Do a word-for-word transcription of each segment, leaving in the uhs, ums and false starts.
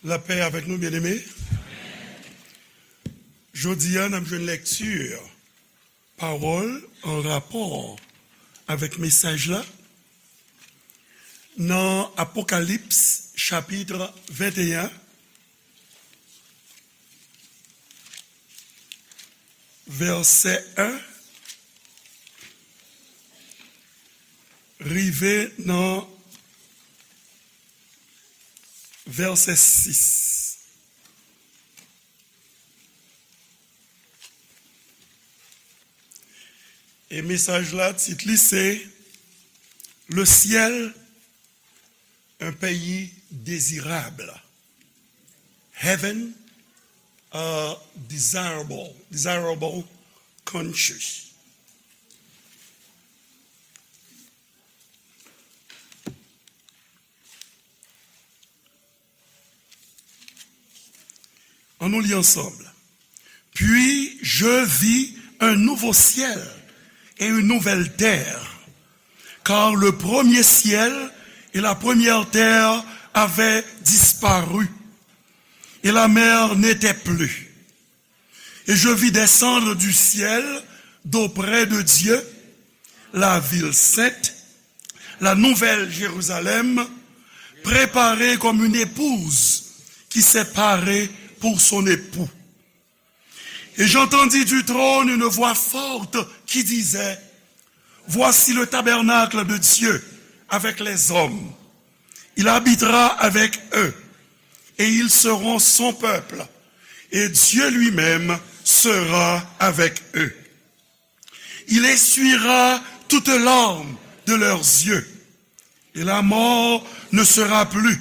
Lapè avèk nou, byeneme. Jodi a, n ap jwenn lekti pawòl an rapò avèk mesaj la nan Apokalips, chapit venteyen, vèsè en, rive nan vèsè sis. E mesaj la, tit li se Le ciel, un pays désirable. Heaven, a desirable, desirable country. Ann nou li ansanm. Puis je vis un nouveau ciel et une nouvelle terre, car le premier ciel et la première terre avaient disparu, et la mer n'était plus. Et je vis descendre du ciel d'auprès de Dieu la ville sainte, la nouvelle Jérusalem, préparée comme une épouse qui s'est parée pour son époux. Et j'entendis du trône une voix forte qui disait, Voici le tabernacle de Dieu avec les hommes. Il habitera avec eux, et ils seront son peuple, et Dieu lui-même sera avec eux. Il essuiera toute larme de leurs yeux, et la mort ne sera plus,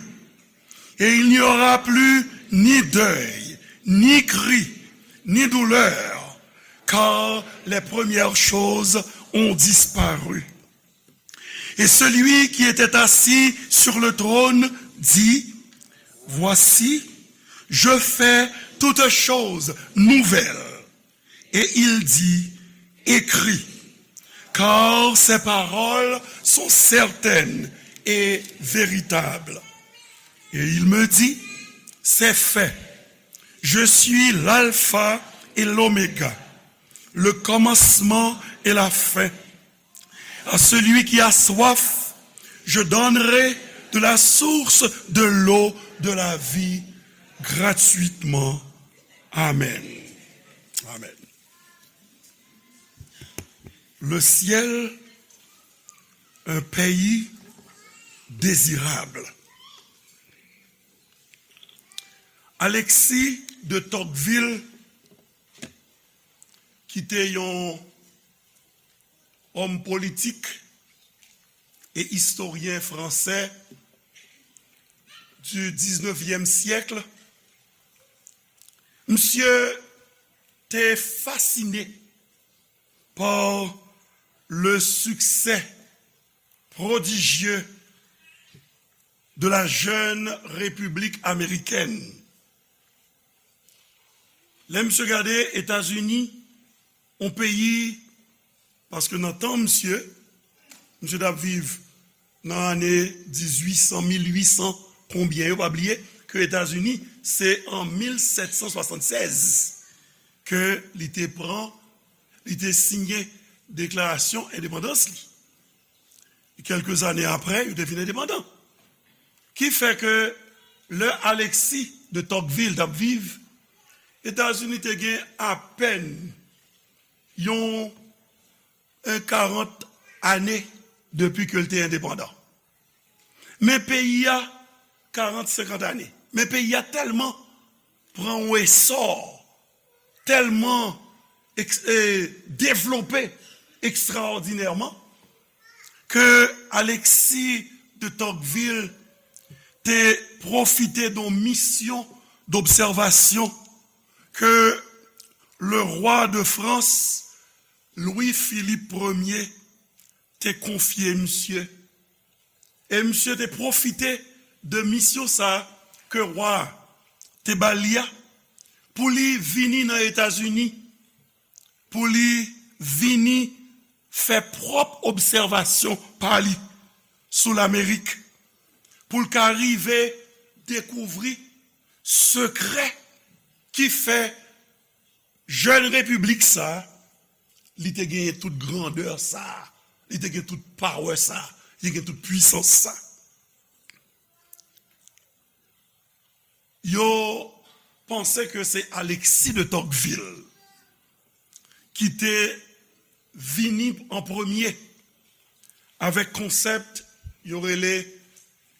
et il n'y aura plus ni deuil, ni cri, ni douleur, car les premières choses ont disparu. Et celui qui était assis sur le trône dit, Voici, je fais toutes choses nouvelles. Et il dit, Écris, car ces paroles sont certaines et véritables. Et il me dit, C'est fait. Je suis l'alpha et l'oméga, le commencement et la fin. À celui qui a soif, je donnerai de la source de l'eau de la vie gratuitement. Amen. Amen. Le ciel, un pays désirable. Alexis de Tocqueville, ki te yon òm politik e istoryen fransè du dix-neuvième siècle, misye te fasine par le succès prodigieux de la jeune République américaine. Lè misye gade Etazini, yon peyi, paske nan tan misye, misye t ap viv nan ane dizuit san, mil uit san, konbyen yo, pa bliye ke Etazini, se an mil sèt san swasannsèz ke li te pran, li te siyen deklarasyon endepandans li. Kèlke zane apre, yo te vin endepandan. Ki fè ke lè Alexis de Tocqueville t ap viv, Etazini te gen apèn yon, yon karant ane depi ke l te endepandan. Men peyi a, karant, senkant ane. Men peyi a tèlman pran yon esò, tèlman eks-, e, devlope ekstraòdinèman, ke Alexis de Tocqueville te pwofite de yon misyon dobsèvasyon ke le rwa de Frans, Louis Philippe Premier, te konfye misye. E misye te pwofite de misyon sa a ke wa a te ba li a, pou li vini nan Etazini, pou li vini fè pwòp obsèvasyon pa li sou Lamerik, pou l ka rive dekouvri sekrè ki fè jèn repiblik sa, li te genyen tout grandè sa, li te gen tout power sa, li te gen tout pwisans sa. Yo panse ke se Alexis de Tocqueville ki te vini an premye avèk konsèp yo rele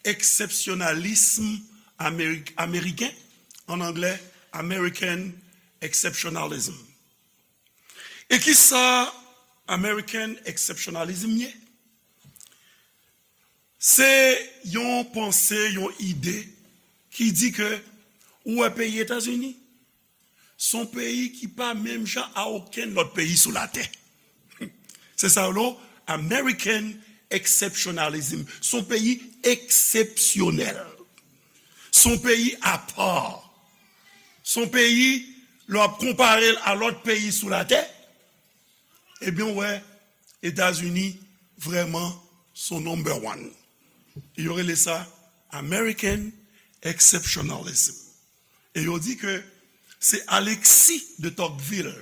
eksepsyonalism amerik-, ameriken, an anglè, American Exceptionalism. E kisa American Exceptionalism ye? Se yon panse, yon ide ki di ke ou wè peyi Etazini, se yon peyi ki pa menm jan a okenn lòt peyi sou latè. Se sa yo rele American Exceptionalism. Se yon peyi eksepsyonèl. Se yon peyi apa. Se yon peyi, lè w ap konpare l a lòt peyi sou latè, ebyen, w wè, Etazini vrèman se number one. E yo rele sa American Exceptionalism. E yo di ke se Alexis de Tocqueville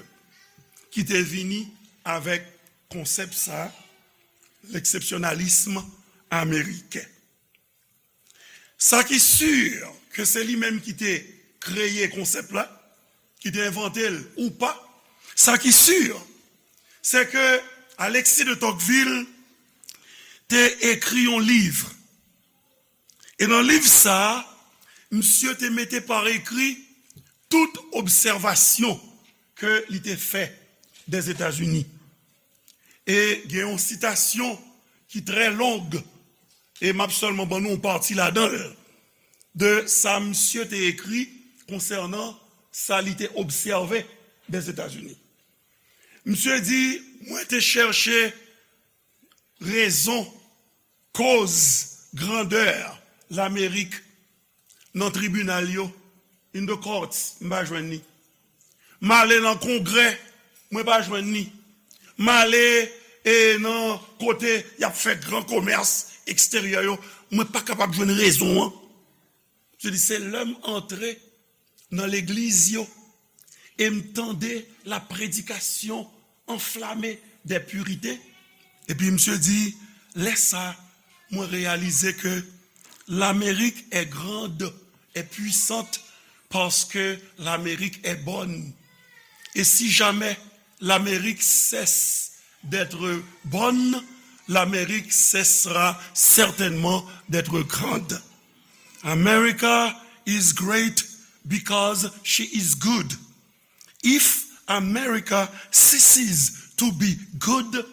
ki te vini avèk konsèp sa, leksepsyonalism ameriken. Sa ki si, ke se li menm ki te kreye konsèp la, ki te envante l ou pa, sa ki si, se ke Alexis de Tocqueville te ekri yon liv. E nan liv sa a, misye te mete pa ekri tout obsèvasyon ke li te fè dèzetazini. E gen yon sitasyon ki trè long, e m ap sèlman ban nou yon pati ladan l, de sa misye te ekri konsènan sa li te obsève dèzetazini. Misye di, mwen te chèche rezon, koz, grandè Lamerik nan tribinal yo, in the courts, m pa jwenn li. M ale nan Kongrè, mwen pa jwenn li. M ale, e, nan kote y ap fè gran komès eksteryè yo, mwen pa kapab jwenn rezon an. Se di, se lè m antre nan legliz yo e m tande la prédication enflammée des purités. Epi misye di, lè sa, mwen reyalize ke l'Amérique est grande et puissante parce que l'Amérique est bonne. Et si jamais l'Amérique cesse d'être bonne, l'Amérique cessera certainement d'être grande. America is great because she is good. If America ceases to be good,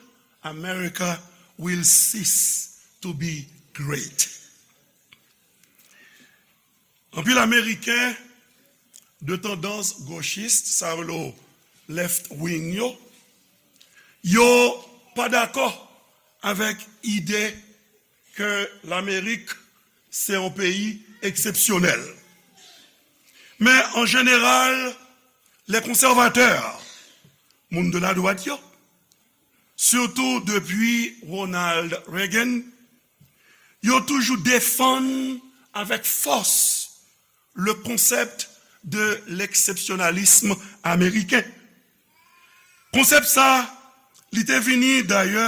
America will cease to be great. Anpil Ameriken de tandans gochis, sa yo rele left wing yo, yo pa dakò avèk ide ke Lamerik se yon peyi eksepsyonèl. Men an jeneral, les conservateurs, moun de la dwat yo, sitou depi Ronald Reagan, yo toujou defann avèk fòs le concept de l'exceptionnalisme américain. Konsèp sa, li te vini dayè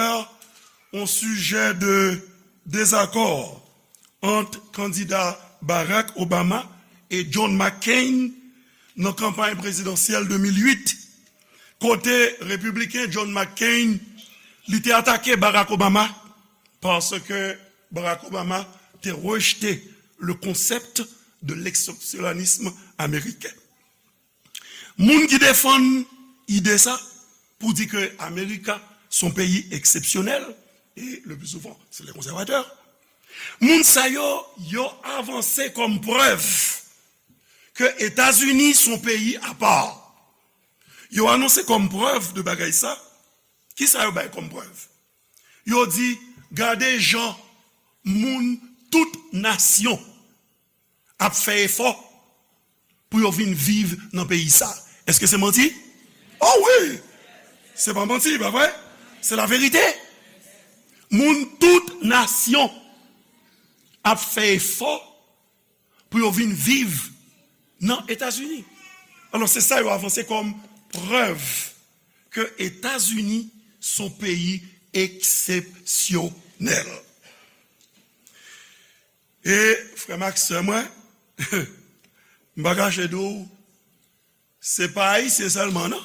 yon sijè de dezakò ant kandida Barack Obama e John McCain nan kanpay prezidansyèl de mil uit, kote repibliken John McCain, li te atake Barack Obama paske Barack Obama te rejte le concept de l'exceptionnalisme américain. Moun ki defann ide sa pou di ke Amerika se yon peyi eksepsyonèl, e le pli souvan, se les conservateurs, moun sa yo, yo avanse kòm prèv ke Etazini se yon peyi apa. Yo anonse kòm prèv de bagay sa. Kisa yo bay kòm prèv? Yo di, gade jan moun tout nasyon ap fè efò pou yo vin viv nan peyi sa. Èske se manti? O wi! Se pa manti, pa vre? Se laverite. Moun tout nasyon ap fè efò pou yo vin viv nan Etazini. Alò, se sa yo avanse kòm prèv ke Etazini se yon peyi eksepsyonèl. E, frè m ak sè mwen, m pa kache di w, se pa Ayisyen sèlman, non.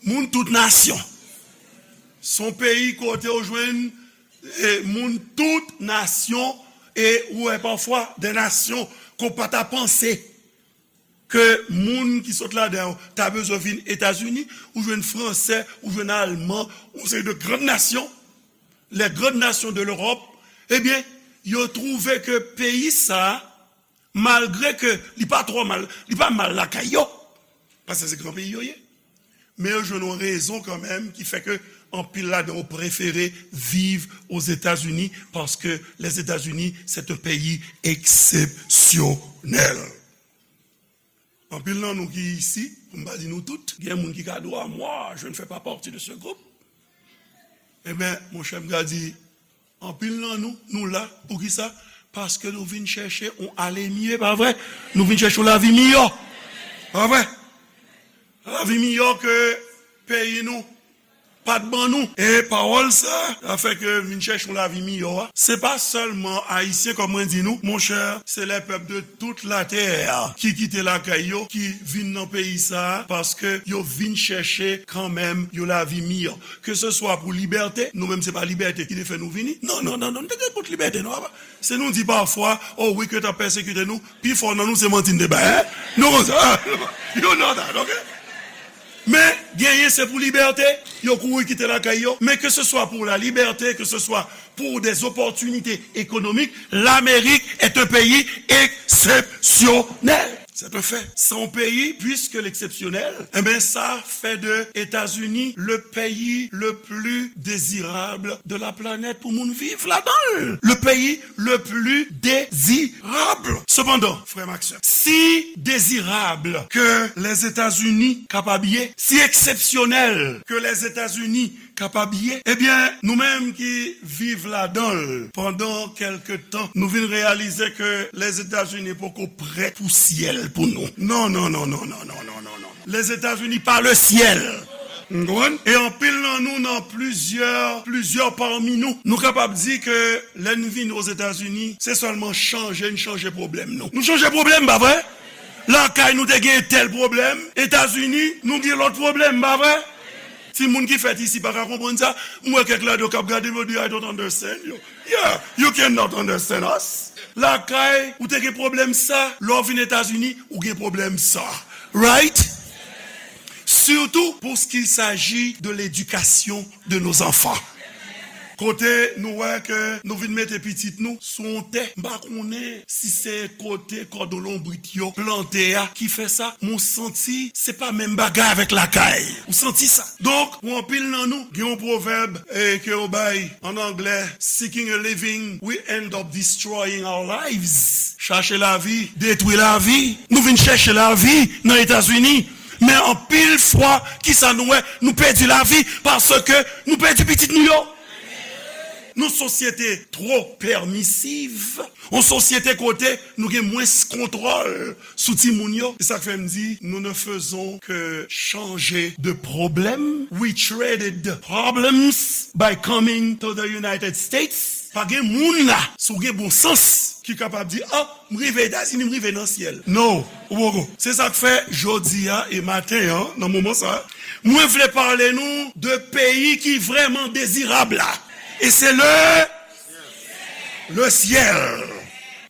Moun tout nasyon. Se yon peyi kote w jwenn, e, moun tout nasyon, e ou wè pafwa de nasyon ke w pa ta panse ke moun ki sot ladan yo ta bezwen vin Etazini, ou jwenn Fransè, ou jwenn Alman, yon seri de grann nasyon, les grandes nations de l'Europe, ebyen, yo twouve ke peyi sa a, malgre ke li pa twò mal, li pa mal lakay yo, paske se gran peyi yo ye, men yo jwenn yon rezon kanmenm ki fè ke anpil ladan yo prefere viv Ozetazini, paske Lèzetazini, c'est un pays exceptionnel. Anpil nan nou ki isi, pou m pa di nou tout, gen moun ki ka di, ah, moi, je ne fais pas partie de ce groupe. Ebyen, monchè, m ka di, anpil nan nou, nou la, poukisa? Paske nou vin chèche yon ale mye, pa vre? Nou vin chèche yon lavi miyò, pa vre? Lavi miyò ke peyi nou pa t ban nou. E pawòl sa, sa fè ke vin chèche yon lavi miyò a, se pa sèlman Ayisyen, kòm mwen di nou, monchè, c'est les peuples de toute la terre ki kite lakay yo, ki vin nan peyi sa a, paske yo vin chèche kanmenm yon lavi miyò. Ke se swa pou libète, nou menm se pa libète ki te fè nou vini. Non, non, non, non, nou te gen kont libète, non, papa. Se nou di pafwa, oh wi, ke t ap pèsekite nou, pifò nan nou se manti n te bay, hein? Nou konn sa, you know that, ok? Men, genyen se pou libète, yo kouri kite lakay yo. Men ke se swa pou la libète, ke se swa pour des opportunités économiques, l'Amérique est un pays exceptionnel. C'est un fait. Se yon peyi, puisque l'exceptionnel, eh ben, ça fait de États-Unis le pays le plus désirable de la planète pou moun viv ladan l. Le pays le plus désirable. Sepandan, frè m ak sè, si dezirab ke Lèzetazini kapab ye, si eksepsyonèl ke Lèzetazini kapab ye, ebyen, nou menm ki viv ladan l pandan kèlke tan, nou vin reyalize ke Lèzetazini poko prèt pou syèl pou nou. Non, non, non, non, non, non, non, non, non. Lèzetazini pa le syèl. N konprann? E anpil nan nou, nan plizyè, plizyè pami nou, nou kapab di ke lè n vin Ozetazini, se sèlman chanje n chanje pwoblèm nou. Nou chanje pwoblèm, pa vre? Lakay nou te gen tèl pwoblèm, Etazini, nou gen lòt pwoblèm, pa vre? Timoun ki fèt isi pa ka konprann sa. M wè kèk ladan yo k ap gade m, yo di, I don't understand you. Yeah, you cannot understand us. Lakay, ou te gen pwoblèm sa, lè w vin Etazini, ou gen pwoblèm sa. Right? Surtout pour ce qu'il s'agit de l'éducation de nos enfants. Kote nou wè ke nou vin mete pitit nou sou yon tè, m pa konnen si se kote kòdon lonbrit yo plante a ki fè sa, men w santi se pa menm bagay avèk lakay. Ou santi sa. Donk, pou anpil nan nou, gen yon pwovèb, eh, ke yo bay an anglè, seeking a living, we end up destroying our lives. Chache lavi, detwi lavi. Nou vin chèche lavi nan Etazini. Men anpil fwa, kisa nou wè? Nou pèdi lavi paske nou pèdi pitit nou yo. Nou sosyete twò pèmisiv. Yon sosyete kote nou gen mwens kontwòl sou timoun yo. Se sa k fè m di, nous ne faisons que changer de problème. We traded problems by coming to the United States. Pa gen moun la, si w gen bon sans, ki kapab di, ah, m rive Etazini, m rive nan syèl. No, ou poko. Se sa k fè jodi a e maten an, nan moman sa, mwen vle pale nou de peyi ki vrèman dezirab la. E se le, le syèl.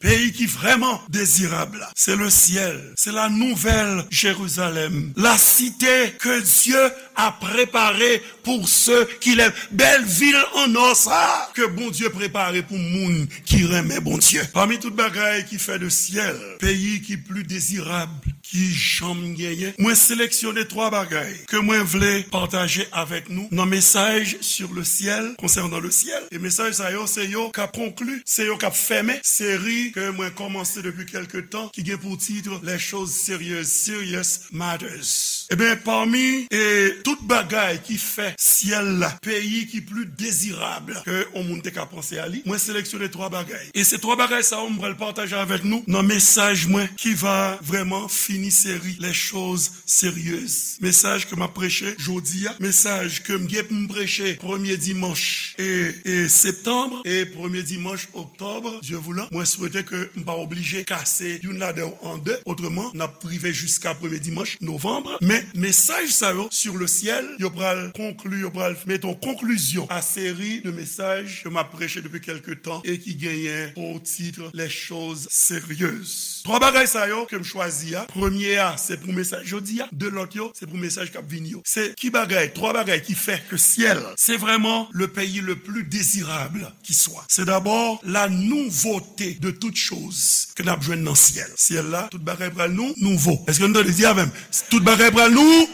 Peyi ki vrèman dezirab la, se le syèl. Se la nouvelle Jérusalem. La cité que Dieu a préparée pour ceux qui l'aiment. Bèl vil an nò sa ke Bondye prepare pou moun ki renmen Bondye. Pami tout bagay ki fè de syèl peyi ki pli dezirab ki janm genyen, mwen seleksyone twa bagay ke mwen vle pataje avèk nou nan mesaj sur le ciel, concernant le ciel. E mesaj sa yo, se yo k ap konkli, se yo k ap fèmen seri ke mwen kòmanse depi kèlke tan, ki gen pou tit Les choses sérieuses, serious matters. Ebyen, pami e tout bagay ki fè syèl la, peyi ki pli dezirab ke yon moun te ka panse a li, mwen seleksyone twa bagay. E se twa bagay sa yo m pral pataje avèk nou nan mesaj mwen ki va vrèman fini seri Les choses sérieuses. Mesaj ke m ap preche jodi a, mesaj ke m gen pou m preche premye dimanch e, e septanm e premye dimanch oktòb, Dye voulan. Mwen swete ke m pa oblije kase youn ladan yo an de, otreman, n ap rive jiska premye dimanch novanm. Men mesaj sa yo, sur le ciel, yo pral konkli, yo pral mete yon konklizyon a seri de mesaj ke m ap preche depi kèlke tan e ki genyen pou tit Les choses sérieuses. Twa bagay sa yo ke m chwazi a, premye a, se pou mesaj jodi a, de lòt yo, se pou mesaj k ap vini yo. Se ki bagay, twa bagay ki fè ke syèl, se vrèman le pays le plus désirable qui soit. C'est d'abord la nouveauté de toutes choses ke n ap jwenn nan syèl. Syèl la, tout bagay pral nou, nouvo. Èske nou tande di avè m? Tout bagay pral nou,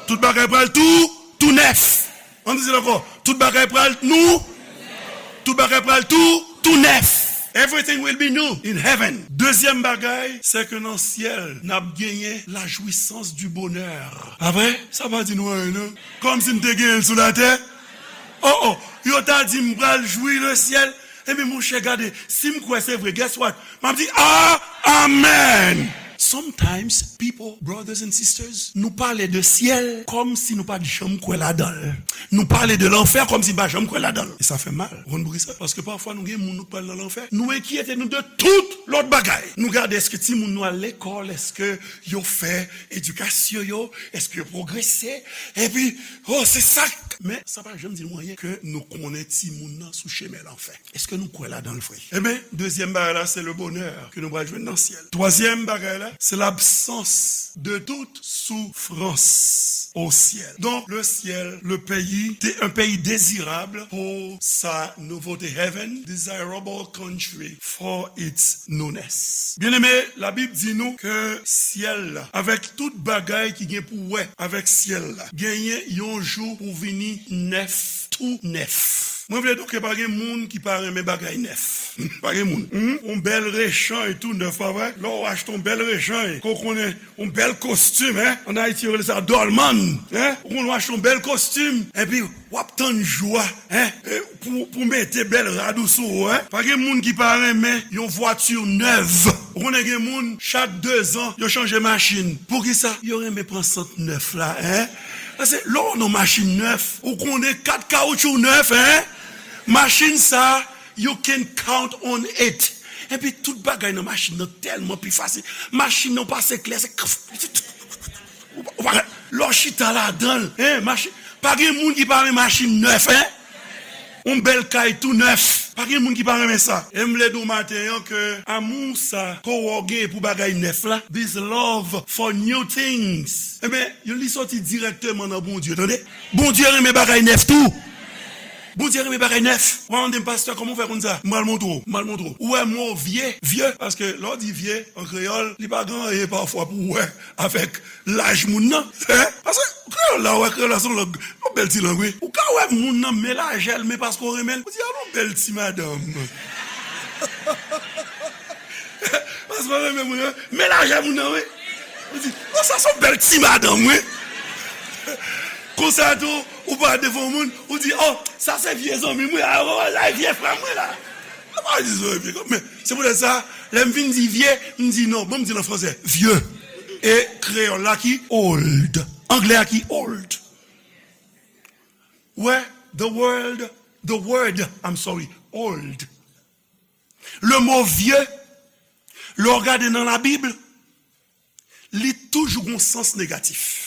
tout bagay pral tou, tou nèf. Ann di l ankò. Tout bagay pral nou, tout bagay pral tou, tou nèf. Everything will be new in heaven. Dezyèm bagay, se ke nan syèl, n ap genyen la jouissance du bonheur. Apre, sa pa di nou anyen, non? Kòmsi n te genyen l sou latè. Oh, oh, yo ta di m pral jwi le syèl. Ebyen, monchè, gade, si m kwè se vre, guess what? M ap di, ah, amen! Sometimes, people, brothers and sisters, nou pale de syèl kòmsi nou pa t janm kwè ladan l. Nou pale de lanfè kòmsi n pa janm kwè ladan l. E sa fè mal. Ou konn poukisa? Paske pafwa nou gen moun nou pral nan lanfè. Nou enkyete nou de tout lòt bagay. Nou gade èske timoun nou al lekòl, èske yo fè edikasyon yo, èske yo pwogrese. Epi, oh, se sa. Men, sa pa janm di nou anyen ke nou konnen timoun nan sou chemen lanfè. Èske nou kwè ladan l vre? Ebyen, dezyèm bagay la, se le bonheur ke nou pral jwenn nan syèl. Twazyèm bagay la, se l'absence de toute souffrance au ciel. Donc, le ciel, le pays, c'est un pays désirable pour sa nouveauté. Heaven, desirable country for its newness. Byeneme, Labib di nou ke syèl la, avèk tout bagay ki gen pou wè avèk syèl la, genyen yon jou pou vini nèf, tou nèf. Mwen vle di w ke pa gen moun ki pa renmen bagay nèf. Pa gen moun. Hmm? Yon bèl rechanj tou nèf, pa vre? Lè w achte yon bèl rechanj, ke w konnen yon bèl kostim, en? Ann Ayiti, yo rele sa dòlmann, en? Ou konn w achte yon bèl kostim, epi w ap tann jou a, en? E pou, pou mete bèl rad ou sou ou, en? Pa gen moun ki pa renmen yon vwati nèv. Ou konnen gen moun, chak dezan, yo chanje machin. Poukisa? Yo renmen pran sant nèf la, en? Paske lè w nan machin nèf, ou konnen kat kawoutchou nèf, en? Machin sa, you can count on it. Epi tout bagay nan machin nan tèlman pi fasil. Machin nan pase klè, se ou pa, ou pa, lè w chita ladan l, en, machin, pa gen moun ki pa renmen machin nèf, en? Yon bèl kay tou nèf. Pa gen moun ki pa renmen sa. E m vle di w maten an ke amou sa ke w genyen pou bagay nèf la, this love for new things, ebyen, li soti dirèkteman nan Bondye, tande? Bondye renmen bagay nèf tou. Bondye renmen bagay nèf. Ou pa mande m, pastè, kòman w fè konn sa? M pral montre w, m pral montre w. Ou wè mo vye, vye, paske lè w di vye, an kreyòl, li pa gen anyen pafwa pou w wè avèk laj moun nan. En? Paske kreyòl la, ou wè, kreyòl la se yon lang, yon bèl ti lang, wi. Ou ka wè moun nan men lajè l, men paske w renmen l, ou di, "A, yon bèl ti madanm." Paske w renmen moun nan, men lajè moun nan, wi. Ou di, "O, sa se yon bèl ti madanm, wi." Konsa tou, ou pa devan moun, ou di, "O, sa se vye zanmi m, wi. A, o, sa se vye frè m, wi, la." Ou pa di sa, vye, men se poutèt sa, lè m fin di vye, m di non, bon, m di l an fransè, vieux. E kreyòl la ki old. Anglè a ki old. Wè, the world, the word, I'm sorry, old. Le mo vieux, lè w gade nan Labib, li toujou gon sans negatif.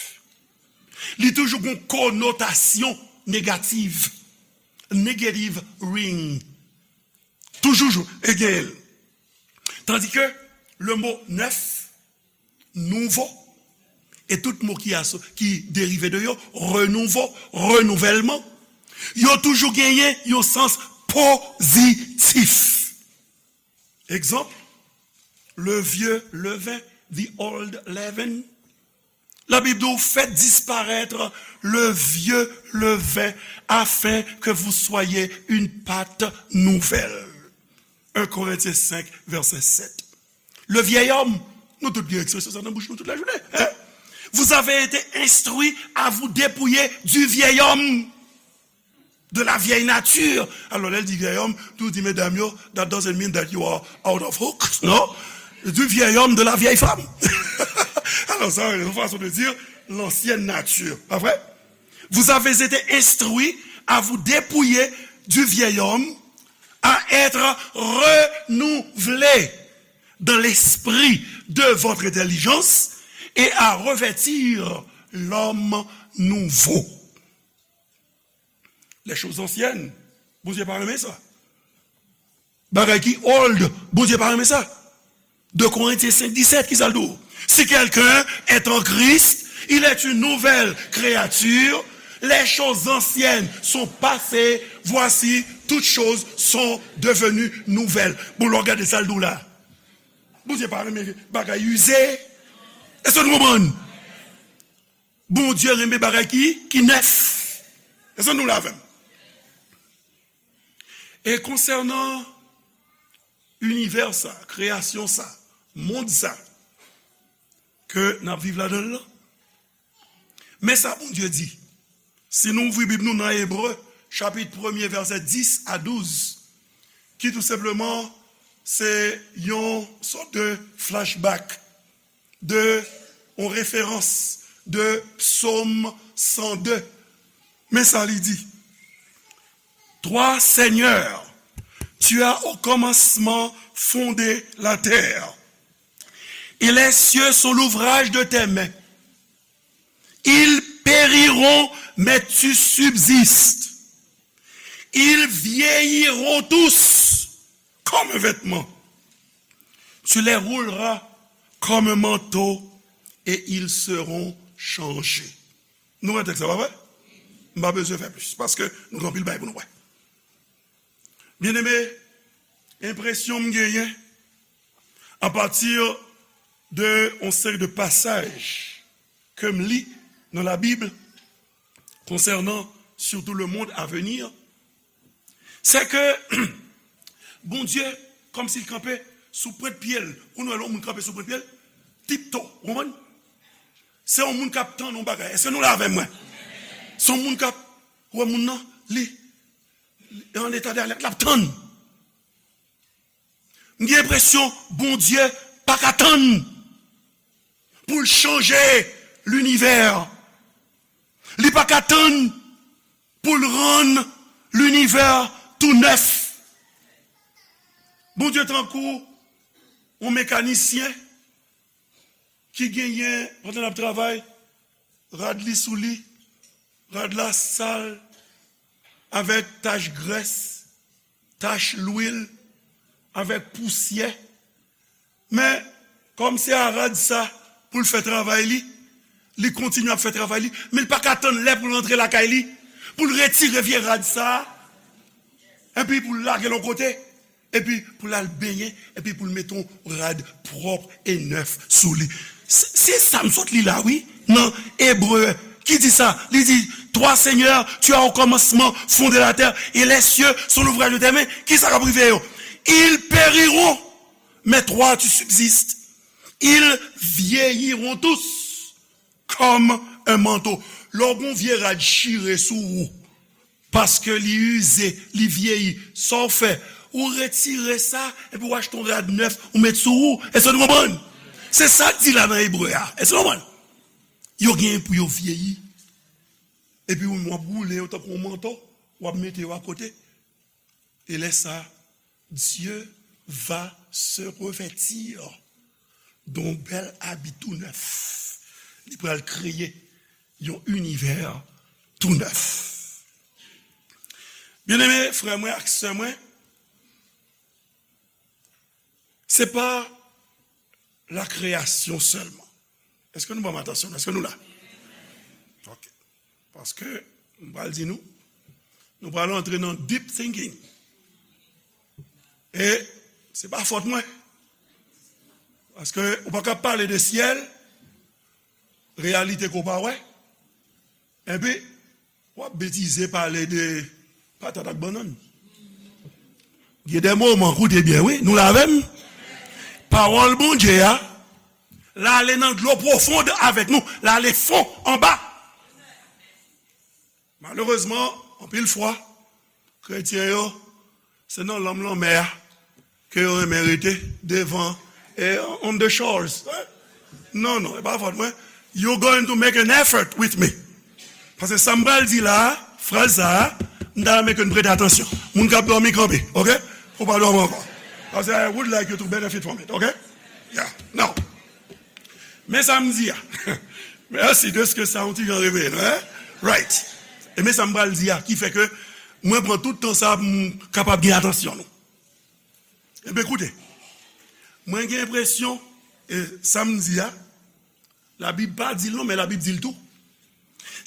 Li toujou gon konotasyon negativ. Negative ring. Toujou jou, e genyen l. Tandis que le mot neuf, nouveau, e tout mo ki aso-, ki derive de yo, renouveau, renouvèlman, yo toujou genyen yon sans pozitif. Egzanp, le vieux levain, the old leaven. Labib di w, faites disparaître le vieux levain, afin que vous soyez une pâte nouvelle. Un Corinthiens cinq, verset sept. Le vieil homme, nou tout gen ekspresyon sa nan bouch nou tout lajounen, en? Vous avez été instruits à vous dépouiller du vieil homme, de la vieille nature. Alò, lè l di vieil homme, nou di medam yo, that doesn't mean that you are out of hooks, non? Du vieil homme, de la vieille femme. Alò, sa, se yon fason de dire l'ancienne nature. Pa vre? Vous avez été instruits à vous dépouiller du vieil homme, à être renouvelés dans l'esprit de votre intelligence et à revêtir l'homme nouveau. Les choses anciennes, Bondye pa renmen sa. Bagay ki old, Bondye pa renmen sa. De Corinthiens cinq dix-sept, ki sa l di w? Si quelqu'un est en Christ, il est une nouvelle créature. Les choses anciennes sont passées, voici, toutes choses sont devenues nouvelles. Bon, lè w gade sa l di w la. Bondye pa renmen bagay ize. Èske nou konprann? Bondye renmen bagay ki, ki nèf. Èske nou la avè m? E konsènan inivè sa, kreyasyon sa, mond sa, ke n ap viv ladan l lan, men sa Bondye di. Si nou ouvri Bib nou nan Ebre, chapit premye, vèsè dis a douz, ki tou senpleman se yon sòt de flashback, de yon referans de Psaume cent deux. Men sa li di. Toi, Seigneur, tu as au commencement fondé la terre, et les cieux sont l'ouvrage de tes mains. Ils périront, mais tu subsistes. Ils vieilliront tous comme un vêtement. Tu les rouleras comme un manteau et ils seront changés. Nou wè tèks la, pa vre? M pa bezwen fè plis, paske nou gen anpil bagay pou nou wè. Byeneme, enpresyon m genyen, apati de yon seri de pasaj ke m li nan Labib, konsènan sitou le monde à venir, se ke Bondye, kòmsi l kanpe sou pwent pye l. Ou konn wè lè yon moun kanpe sou pwent pye l? Tipto, ou konprann? Se yon moun k ap tann yon bagay. Èske nou la avè mwen? Se yon moun k ap, ou wè moun nan, li, li an eta de alèt, l ap tann. M gen enpresyon Bondye pa ka tann pou l chanje linivè. Li pa ka tann pou l rann linivè tou nèf. Bondye tankou yon mekanisyen ki genyen, pandan l ap travay, rad li sou li, rad la sal, avèk tach grès, tach lwil, avèk pousyè. Men, kòm se a rad sa pou l fè travay li, li kontinye ap fè travay li, men l pa ka tann lè pou l rantre lakay li, pou l retire vye rad sa, epi pou l lage l yon kote, epi pou l al benyen, epi pou l mete yon rad pwòp e nèf sou li. Se, se sa m sot li la, wi, nan Ebre, ki di sa, li di, Toi, Seigneur, tu as au commencement fondé la terre, et les cieux sont l'ouvrage de tes mains. Kisa k ap rive yo? Ils périront, mais toi, tu subsistes. Ils vieilliront tous comme un manteau. Lè w gen yon vye rad chire sou ou, paske li ize, li vyeyi, sa w fè? Ou retire sa, epi w achte yon rad nèf, ou met sou ou. Èske nou konprann? Se sa k di la nan Ebre a. Èske nou konprann? Yo genyen pou yo vyeyi. Epi w ap woule yo tankou yon manto, w ap mete yo akote. E lè sa, Dieu va se revêtir d'un bel habit tout neuf. Li pral kreye yon inivè tou nèf. Byeneme, frè mwen ak sè mwen, se pa la kreyasyon sèlman. Èske nou ban m atansyon? Èske nou la? Ok. Paske, m pral di nou, nou pral antre nan deep thinking. E se pa fòt mwen. Paske ou pa ka pale de syèl, reyalite ke w pa wè. Epi, w ap betize pale de patat ak bannann. Gen de moman, koute byen, wi, nou la avè m? Pawòl Bondye a, L ale nan dlo pwofond avèk nou. L ale fon anba. Malerezman, anpil fwa, kretyen yo, se nan lanm lanmè a ke yo renmen rete devan, eh, on the shores. Non, non, e pa fòt mwen. You're going to make an effort with me. Paske sa m pral di la, fraz sa a, m ta renmen ke n prete atansyon. Moun k ap dòmi kanpe, ok? Ou pa dòmi ankò. Paske I would like you to benefit from it, ok? Yeah. Now, men sa m di a. Mèsi de ce que sa yon ti jan reveye nou, hein? Right. E men sa m pral di a, ki fè ke mwen pran tout tan sa pou m kapab gen atansyon nou. Ebyen, koute. Mwen gen enpresyon, e sa m di a, Labib pa di l non, men Labib di l tou.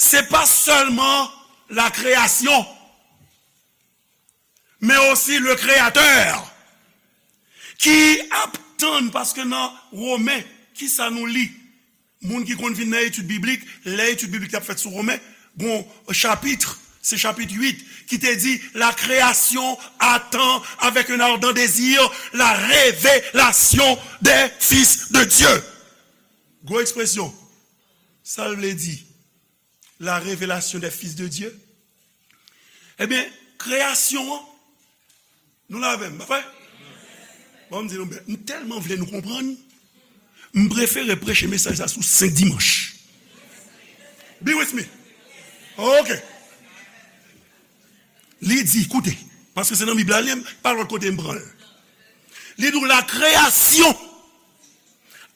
Se pa sèlman la création, men osi le Créateur ki ap tann, paske nan Women, kisa nou li? Moun ki konn vin nan etid biblik, lè etid biblik t ap fèt sou Women, gon chapit, se chapit uit, ki te di, la création attend avec un ardent désir la révélation des fils de Dieu. Gwo ekspresyon. Sa l vle di, la révélation des fils de Dieu? Ebyen, kreyasyon an, nou la avè m, pa vre? Bon, m di nou, m tèlman vle nou konprann, m prefere preche mesaj sa sou senk dimanch. Be with me. Ok. Li di, koute, paske se nan Bib la, li, pa lòt kote m pran l. Li di w, la création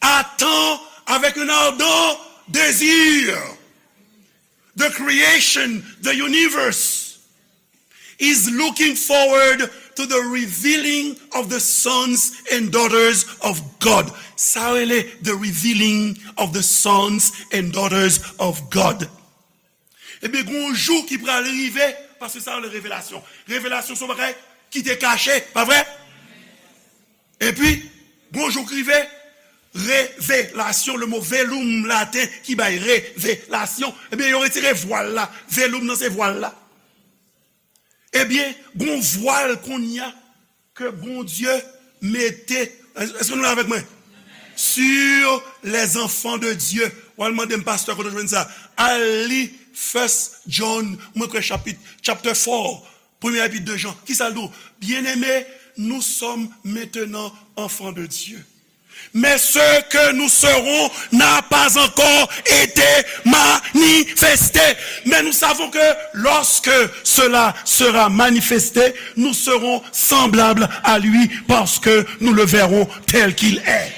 attend avec un ardent désir. The creation, the universe, is looking forward to the revealing of the sons and daughters of God. Sa rele the revealing of the sons and daughters of God. Ebyen, gon jou ki pral rive, paske sa rele revelasyon. Revelasyon se yon bagay ki te kache, pa vre? Epi, gon jou k rive, revelasyon, le mo velum laten ki bay revelasyon, ebyen, yo retire vwal la. Velum nan se vwal la. Ebyen, gon vwal kounye a ke Bondye mete, èske nou la avèk mwen? Sur les enfants de Dieu. W al mande m, pastè, kote w jwenn sa? Al li First John, mwen kwè chapit, chapter four, premye epit de Jan. Kisa l di w? Bien-aimés, nous sommes maintenant enfants de Dieu. Mais ce que nous serons n'a pas encore été manifesté. Mais nous savons que lorsque cela sera manifesté, nous serons semblables à lui parce que nous le verrons tel qu'il est.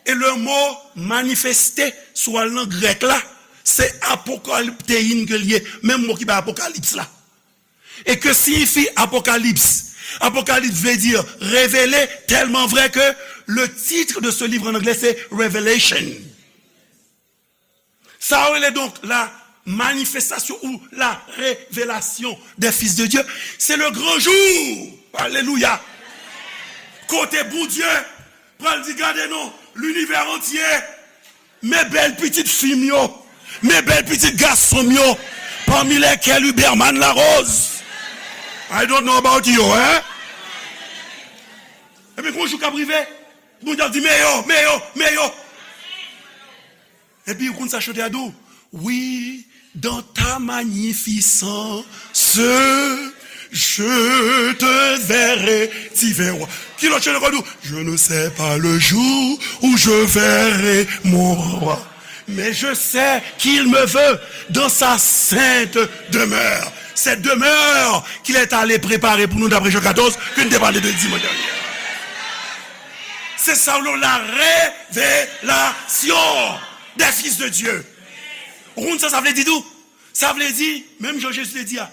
E le mo manifeste, si w al nan grèk la, se apokaliptein ke l ye, menm mo ki bay apokalips la. E ke siyifi apokalips? Apokalips vle di revele, tèlman vrè ke le titre de ce livre en anglais se Revelation. Sa yo rele donk la manifestation ou la révélation des fils de Dieu. C'est le grand jour. Alelouya. Kote Bondye pral di, gade non, l'univers entier, men bèl pitit fi m yo, men bèl pitit gason m yo, parmi lesquels Huberman Larose. I don't know about you, hein? Ebyen, gon jou k ap rive, Bondye ap di, men yo, men yo, men yo. Epi, ou konn sa chante a di w? Oui, dans ta magnificence, je te verrai, divin roi. Ki lòt chante k ap di w? Je ne sais pas le jour où je verrai mon roi. Mais je sais qu'il me veut dans sa sainte demeure. Cette demeure qu'il est allé préparer pour nous d'après Jean quatorze, ke n te pale de dimanch dènye. Se sa w rele la révélation des fils de Dieu. Ou konn sa sa vle di tou? Sa vle di, menm jan Jezi te di a,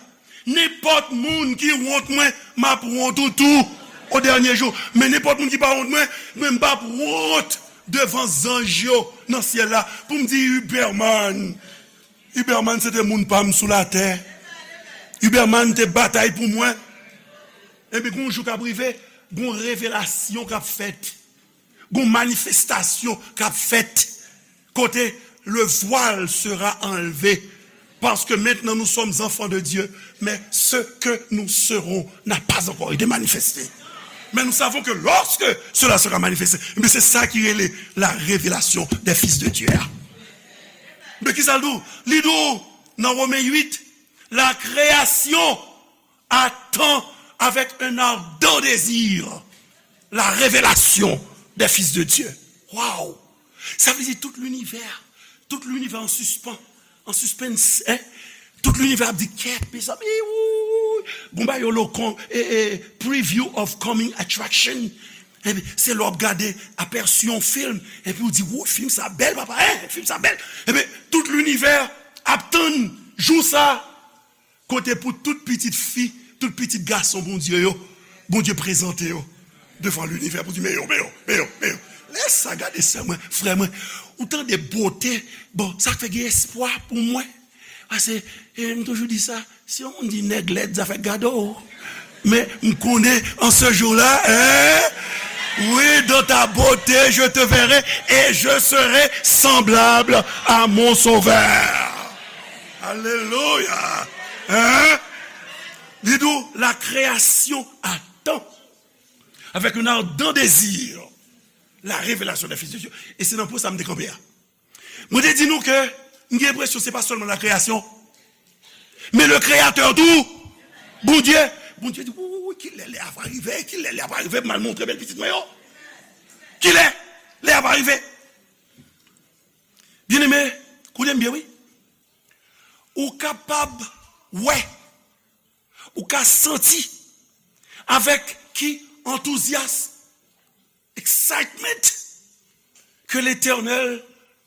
nenpòt moun ki wont mwen, m ap wont ou tou o dènye jou. Men nenpòt moun ki pa wont mwen, mwen m p ap wont devan zanj yo nan syèl la pou m di, Huberman, Huberman se te moun pa m sou latè. Huberman te batay pou mwen. Ebyen, gon jou k ap rive, gon revelasyon k ap fèt. Gon manifestasyon k ap fèt. Kote le voile sera enlevé. Parce que maintenant nous sommes enfants de Dieu, mais ce que nous serons n'a pas encore été manifesté. Mais nous savons que lorsque cela sera manifesté, mais c'est ça qui est la révélation des fils de Dieu. Mais qui ça dit? Li di w nan Romen uit, la création attend avec un ardent désir la révélation des fils de Dieu. Wow! Sa vle di tout linivè, tout linivè an sispann, an suspens, hein? Tout linivè ap di kèt, mezanmi, wouy. Gon bagay yo lo kon, e, e, preview of coming attraction. Epi se lè w ap gade apèsi yon fim, epi w di, wouy, fim sa bèl, papa, hein? Fim sa bèl. Epi tout linivè ap tann jou sa. Kote pou tout pitit fi, tout pitit gason Bondye yo, Bondye prezante yo devan linivè pou di, men yo, men yo, men yo, men yo. Lè sa gade sè mwen, frè mwen, ou tande bote, bon, sa fè gen espwa pou mwen. Paske, e, m toujou di sa, si yon moun di nèg lèd, zafè gade w. Men, m konnen, an se jou la, hein? Oui, dans ta beauté, je te verrai et je serai semblable à mon Sauveur. Alelouya! Hein? Li di w, la création attend avec un ardent désir la révélation des fils de Dieu. E se nan pwen sa m te kanpe a. Mwen te di nou ke m gen enpresyon se pa sèlman la création, men le créateur tou, Bondye. Bondye di, wi, wi, wi, kilè lè a va rive, kilè lè a va rive, m al montre bèl pitit mwen yo. Kilè lè a va rive? Byeneme, koute m byen, wi. Ou kapab wè, ou ka santi avèk ki antouzyasm, excitement, ke Letènèl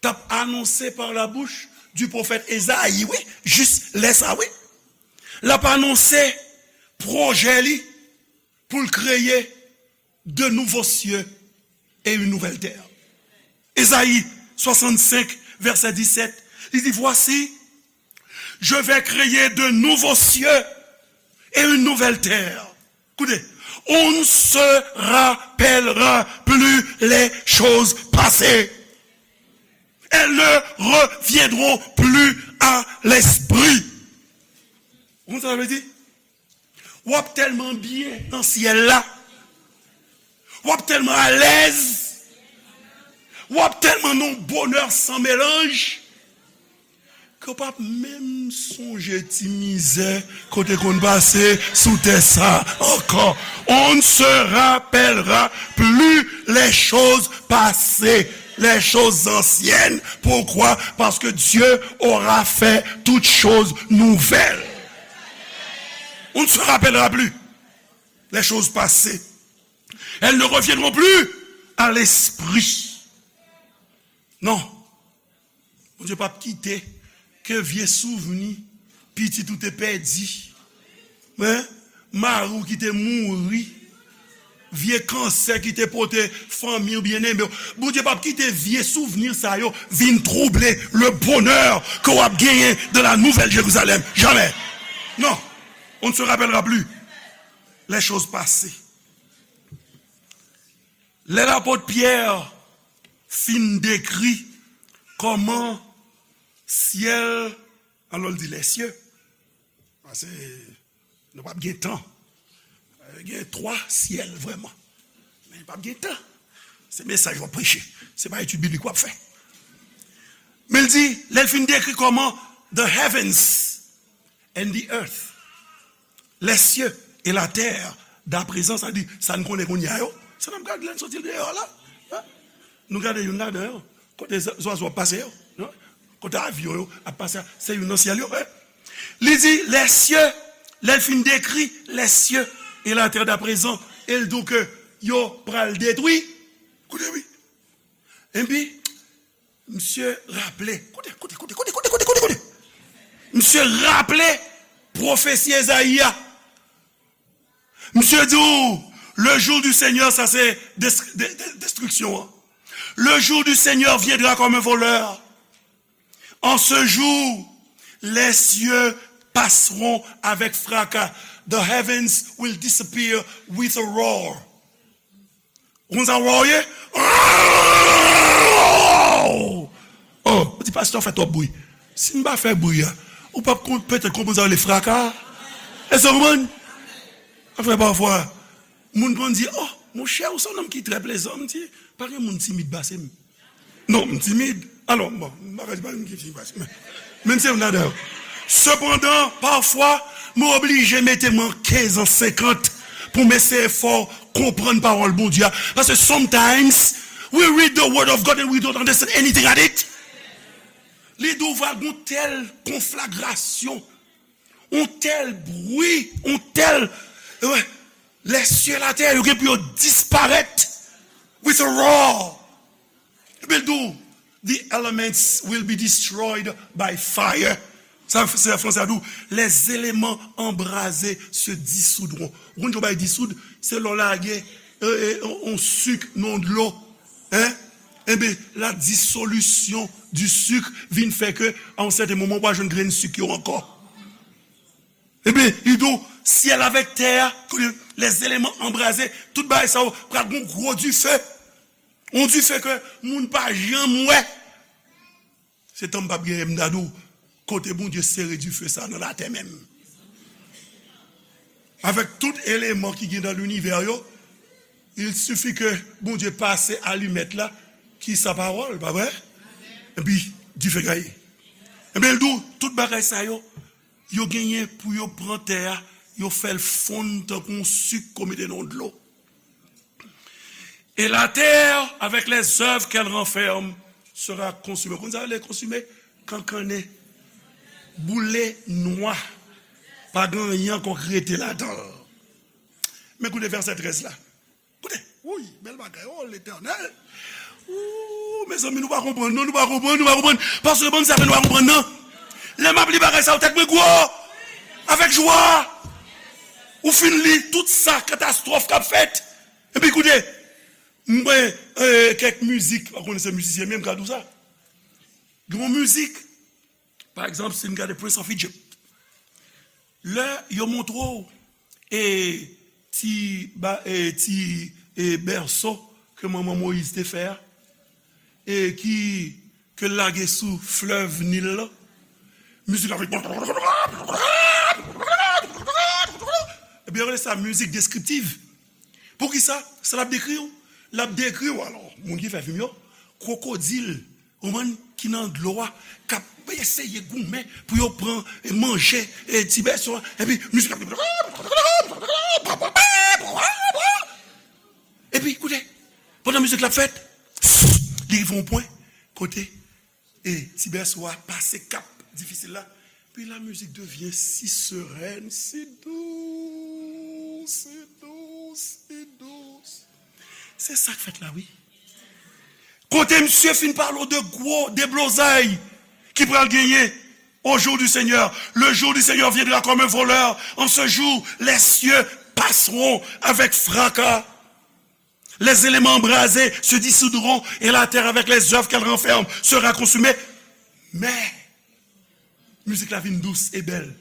t ap anonse par la bouche du prophète Ezayi, wi, jis lè sa, wi. L ap anonse pwojè li pou l kreye de nouveaux cieux et une nouvelle terre. Ezayi swasannsenk, vèsè disèt, li di, voici, je vais créer de nouveaux cieux et une nouvelle terre. Écoutez, on ne se rappellera plus les choses passées. Elles ne reviendront plus à l'esprit. Ou konn sa sa vle di? W ap tèlman byen nan syèl la. W ap tèlman alèz. W ap tèlman nan yon bonè san melanj ke w p ap menm sonje ti mizè ke w te konn pase sou tè sa ankò. On ne se rappellera plus les choses passées, les choses anciennes. Pourquoi? Parce que Dieu aura fait toutes choses nouvelles. On ne se rappellera plus les choses passées. Elles ne reviendront plus à l'esprit. Non. Bondye p ap kite ke vye souvni pitit ou te pèdi, men, mari w ki te mouri, vye kansè ki te pote fanmi w byeneme w. Bondye p ap kite vye souvni sa yo vin twouble le bonheur ke w ap genyen dans la Nouvelle Jérusalem. Jamais. Non. On ne se rappellera plus les choses passées. Lè lapot Pyè fin dekri kòman syèl, alò l di lèsye, paske nou p ap gen tan. Gen twa syèl vrèman. Men p ap gen tan. Se mesaj w ap preche. Se pa etid biblik w ap fè. Men l di, lè l fin dekri kòman the heavens and the earth, les cieux et la terre, d'aprezan, sa di, sa n konnen kounye a yo, sa n ap gade lè n soti deyò la. Hein? Nou gade youn ladan yo. Kote zwa-, zwazo ap pase yo. Non? Kote avyon yo ap pase a, se youn nan syèl yo. Hein? Li di, les cieux, lè l fin dekri les cieux et la terre d'aprezan, e l di w ke yo pral detwi. Koute wi. Epi, misye raple, koute, koute, koute. Misye raple pwofesi Ezayi a. Misye di w, le jour du Seigneur, sa se des-, de-, de-, destriksyon an. Le jour du Seigneur viendra comme un voleur. En ce jour, les cieux passeront avec fracas. The heavens will disappear with a roar. Ou konn sa roar ye? Oh, ou di, pastè, w fè twòp bri. Si m pa fè bri a, ou p ap kon-, petèt konprann sa yo rele fraka. Èske w konprann? Sa fè pafwa, Moun konn di, oh, monchè, ou se yon nonm ki trè plezan. M di, pa gen moun timid pase m. Non, m timid. Alò, bon, m pa ka di pa gen moun ki timid pase m. Men, men se youn ladan yo. Sepandan, pafwa, mwen oblije mete m an kenz an senkant pou m eseye fè w konprann pawòl Bondye a. Paske sometimes, we read the word of God and we don't understand anything at it. Li di w va gen yon tèl konflagrasyon, yon tèl bri, yon tèl, eh, les cieux et la terre, yo gen pou yo disparèt with a roar. Epi l di w, the elements will be destroyed by fire. Sa, se fransè a di w, les éléments embrasés se dissoudront. Ou konn jan w bay disoud? Se lè w lage, eh, eh, yon, yon sik nan dlo. Hein? Enben, la dissolution du sucre vin fè ke, a yon sèten moman, w pa jwenn grenn sik yo ankò. Enben, li di w, syèl avèk tè a, kote les éléments embrasés, tout bagay sa yo, pral gen yon gwo dife. Yon dife ke moun pa janm wè. Se tan m p ap genyen, m ta di w, kote Bondye sere dife sa nan latè menm. Avèk tout eleman ki gen nan linivè yo, il suffit ke Bondye pase alimèt la, ki sa pawòl, pa vre? Epi, dife gaye. Ebyen, l di w, tout bagay sa yo, yo genyen pou yo pran tè a, yo fè l fonn tankou yon sik ke w mete nan dlo. Et la terre, avec les œuvres qu'elle renferme, sera consumée. Konn sa yo rele konsime? Kankannen. Boule nwa. Pa gen anyen ankò k rete ladan l. Men koute vèsè trèz la. Koute, wouy, bèl bagay, oh, Letènèl. Ooh, mezanmi, nou pa konprann, non, nou pa konprann, nou pa konprann. Pastè, ban m sa, men nou pa konprann, non. Lè m ap li bagay sa yo, tèt mwen gwo. Avèk jwa. Ou fin li tout sa, katastwòf k ap fèt. Epi koute, m gen, eh, kèk mizik, pa konnen se mizisyen m ye, m ka di w sa. Gen yon mizik, pa egzanp, si n gade Prince of Egypt, lè yo montre w, e, ti, ba, e, ti, e, bèso ke manman Moyiz te fè a, e ki, ke l lage sou flèv Nil la, mizik la fè, ebyen, yo rele sa mizik deskriptiv. Poukisa? Sa l ap dekri w. L ap dekri w, alò, moun ki fè fim yo, kwokodil, ou konprann, ki nan dlo a, k ap eseye goumen pou yo pran, e, manje, e, ti bèso a, epi mizik ap, epi, koute, pandan mizik la ap fèt, li rive yon pwen kote, e, ti bèso a pase kap difisil la, puis la musique devient si sereine, si douce, si douce, si douce. Se sa k fèt la, wi. Kote misye fin pale w de gwo deblozay ki pral genyen au jour du Seigneur. Le jour du Seigneur viendra comme un voleur. En ce jour, les cieux passeront avec fracas. Les éléments embrasés se dissoudront et la terre avec les œuvres qu'elle renferme sera consumée. Mais, mizik la vin dous e bèl.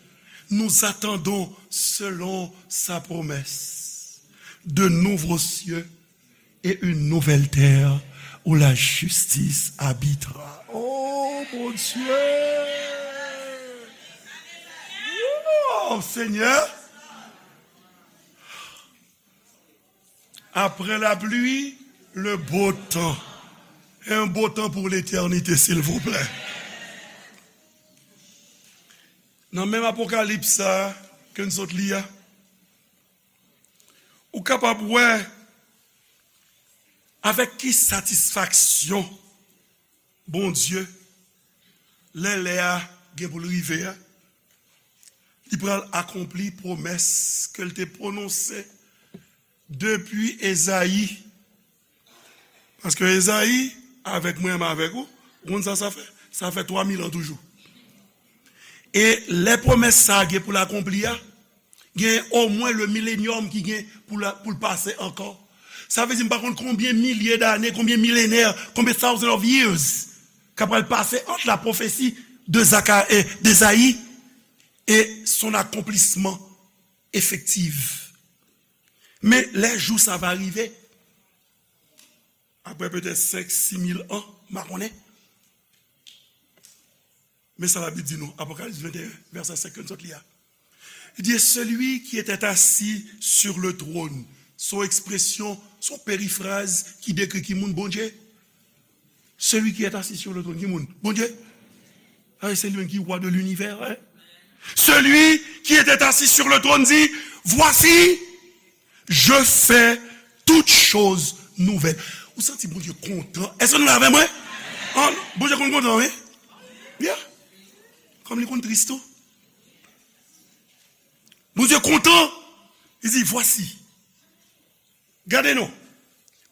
Nous attendons, selon sa promesse, de nouveaux cieux et une nouvelle terre où la justice habitera. Oh mon Dieu! Oh Seigneur! Après la pluie, le beau temps. Un beau temps pour l'éternité, s'il vous plaît. Nan menm Apokalips sa a ke n sot li a, ou kapab wè avèk ki satisfaksyon Bondye, lè lè a gen pou l rive a, li pral akonpli pwomès ke l te pwononse depi Ezayi. Paske Ezayi, avèk mwen, m avèk ou, ou konn sa sa fè? Sa fè twa mil an toujou. E lè pwomès sa a gen pou l akonpli a, gen omwen le milenyòm ki gen pou l, pou l pase ankò. Sa vle di, m pa konn konbyen milye dane, konbyen milenè, konbyen thousand of years k ap pral pase ant la pwofesi de Zaka-, eh, d'Ezayi et son accomplissement effectif. Men lè jou sa va rive, apre petèt senk, sis mil an, m pa konnen. Men sa Labib di nou, Apokalips venteyen, vèsè senk ke n sot li a. Li di, et celui qui était assis sur le trône Se yon ekspresyon, se yon perifraz ki dekri ki moun Bondye. Celui qui est assis sur le trône, ki moun? Bondye. Ah, c'est lui qui roi de l'univers, hein? Celui qui était assis sur le trône dit, voici, je fais toutes choses nouvelles. Ou santi Bondye kontan? Èske nou la avè mwen? An, Bondye konn kontan, wi. Yeah. Kòm li konn tris tou. Bondye kontan. Li di, voici. Gade non.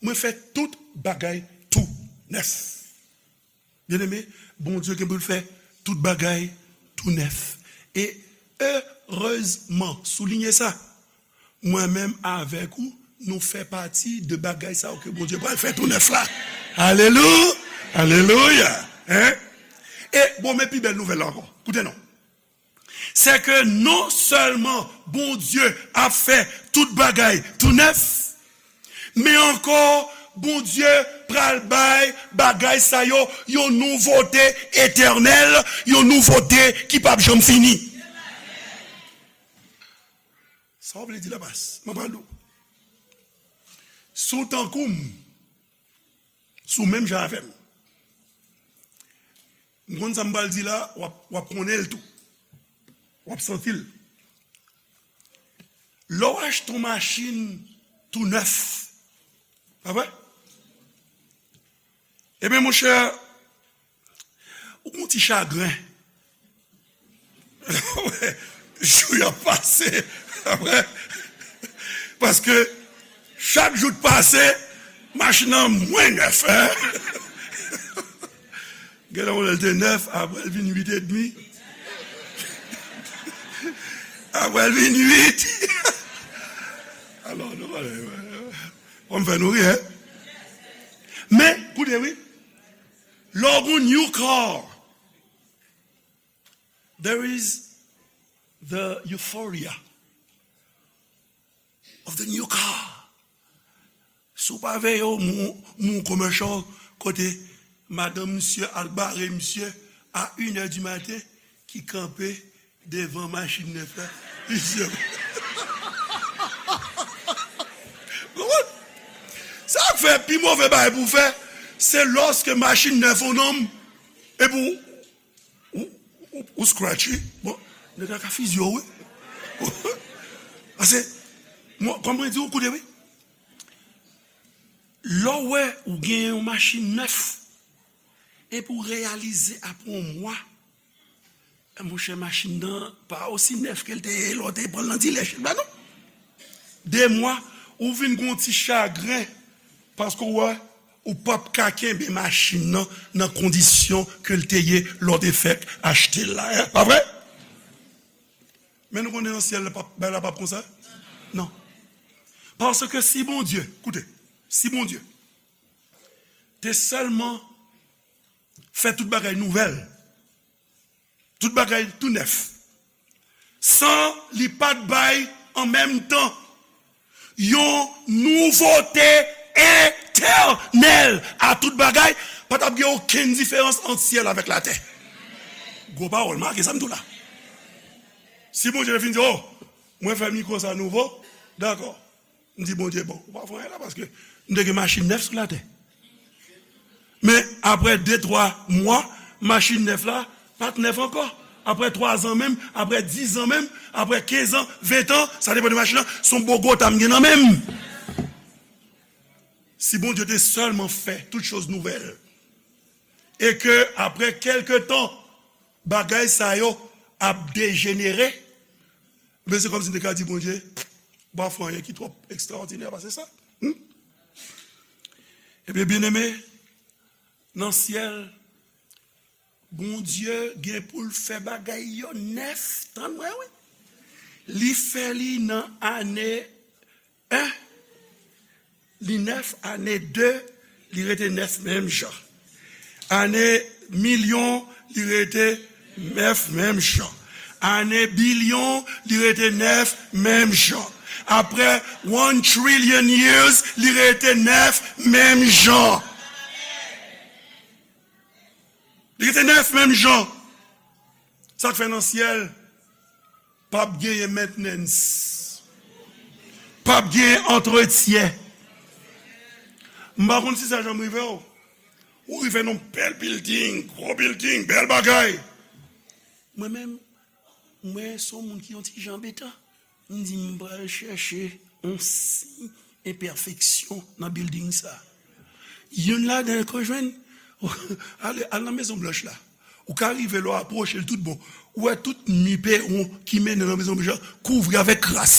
Mwen fè tout bagay tou nèf. Byeneme, Bondye gen pou l fè tout bagay tou nèf. E erezman, soulinye sa, mwen menm avèk ou, nou fè pati de bagay sa yo ke Bondye pral fè tou nèf la. Alelu-, alelouya! Hein? E bon, men pi bèl nouvèl la ankò. Koute non. Se ke non sèlman Bondye ap fè tout bagay tou nèf, men ankò, Bondye pral bay bagay sa yo yon nouvote etènèl, yon nouvote ki p ap janm fini. Sa w vle di la, pas? Mwen pral di w. Si w tankou m, si w menm jan avè m, m konn sa m pral di la, w ap, w ap konnen l tou. W ap santi l. Lè w achte yon machin tou nèf, pa vre? Ebyen, monchè, ou gon ti chagren. Jou y ap pase, pa vre? Paske chak jou k pase, machin nan mwens nèf, hein? Gen lè w wè l te nèf, apre l vin uit edmi. Apre l vin uit. Alò, nou pale, w ap fè nou ri, hein? Men, koute, wi. Lè w gon new car, there is the euphoria of the new car. Si w pa veye, w moun, moun commercial kote madanm misye al bare misye a inè di maten, ki kanpe devan machin nèf la. Misye. Ou konprann? Sa k fè pi move bagay pou w fè, se lòske machin nèf yon nonm, epi w Ou, ou, ou scratch, wi. Bon, nèg la ka fizye w, wi. Paske, mwen, kòm mwen di w, koute, wi. Lè w wè ou gen yon machin nèf, epi w reyalize apre yon mwa, eh, monchè, machin nan pa osi nèf ke l te ye lè w te pran l nan dilè, ba non. De mwa, ou vin gon ti chagren, paske w wè, ou p ap ka kenbe machin nan nan kondisyon ke l te ye lè w te fèk achte l la, eh, pa vre? Men nou konnen nan syèl la, p ap, bagay la p ap konsa? Non. Paske si Bondye, koute, si Bondye te sèlman fè tout bagay nouvèl, tout bagay tou nèf, san li pa t bay an menm tan yon nouvote etènèl a tout bagay, pa t ap gen okenn diferans ant syèl avèk latè. Gwo pawòl, make sa m di w la. Si Bondye te fin di, oh, mwen fè mikwo sa nouvo, dakò. M di Bondye, bon, ou pa fè anyen la, paske m te gen machin nèf sou latè. Men apre de, twa mwa, machin nèf la pa t nèf ankò. Apre twa zan menm, apre diz zan menm, apre kenz an, ven an, sa depann de machin nan, se yon bogota m gen nan men m. Si Bondye te sèlman fè tout choz nouvèl, e ke apre kèlke tan, bagay sa yo ap dejenere, men se kòmsi m te ka di Bondye, ou pa fè anyen ki twò ekstraòdinè pase sa. Hmm? Ebyen, byeneme, nan syèl, Bondye gen pou l fè bagay yo nèf, tann mwen wi. Li fè li nan ane en, li nèf, ane de, li rete nèf menm jan. Ane milyon, li rete nèf menm jan. Ane bilyon, li rete nèf menm jan. Apre one trillion years, li rete nèf menm jan. Li rete nèf menm jan. Sa k fè nan syèl p ap genyen mentnens. p ap gen antretyen. M pa konn si sa janm rive w. Ou rive nan bèl building, gwo building, bèl bagay. Mwen menm, mwen se yon moun ki yon ti jan anbetan. M di m pral chèche yon siy enpèfeksyon nan building sa. Youn ladan yo jwenn, al, al nan Mezon Blanch la. Ou ka rive la, w apwoche l tout bon. Ou wè tout mi pewon ki mennen nan Mezon Blanch la, kouvri avèk kras.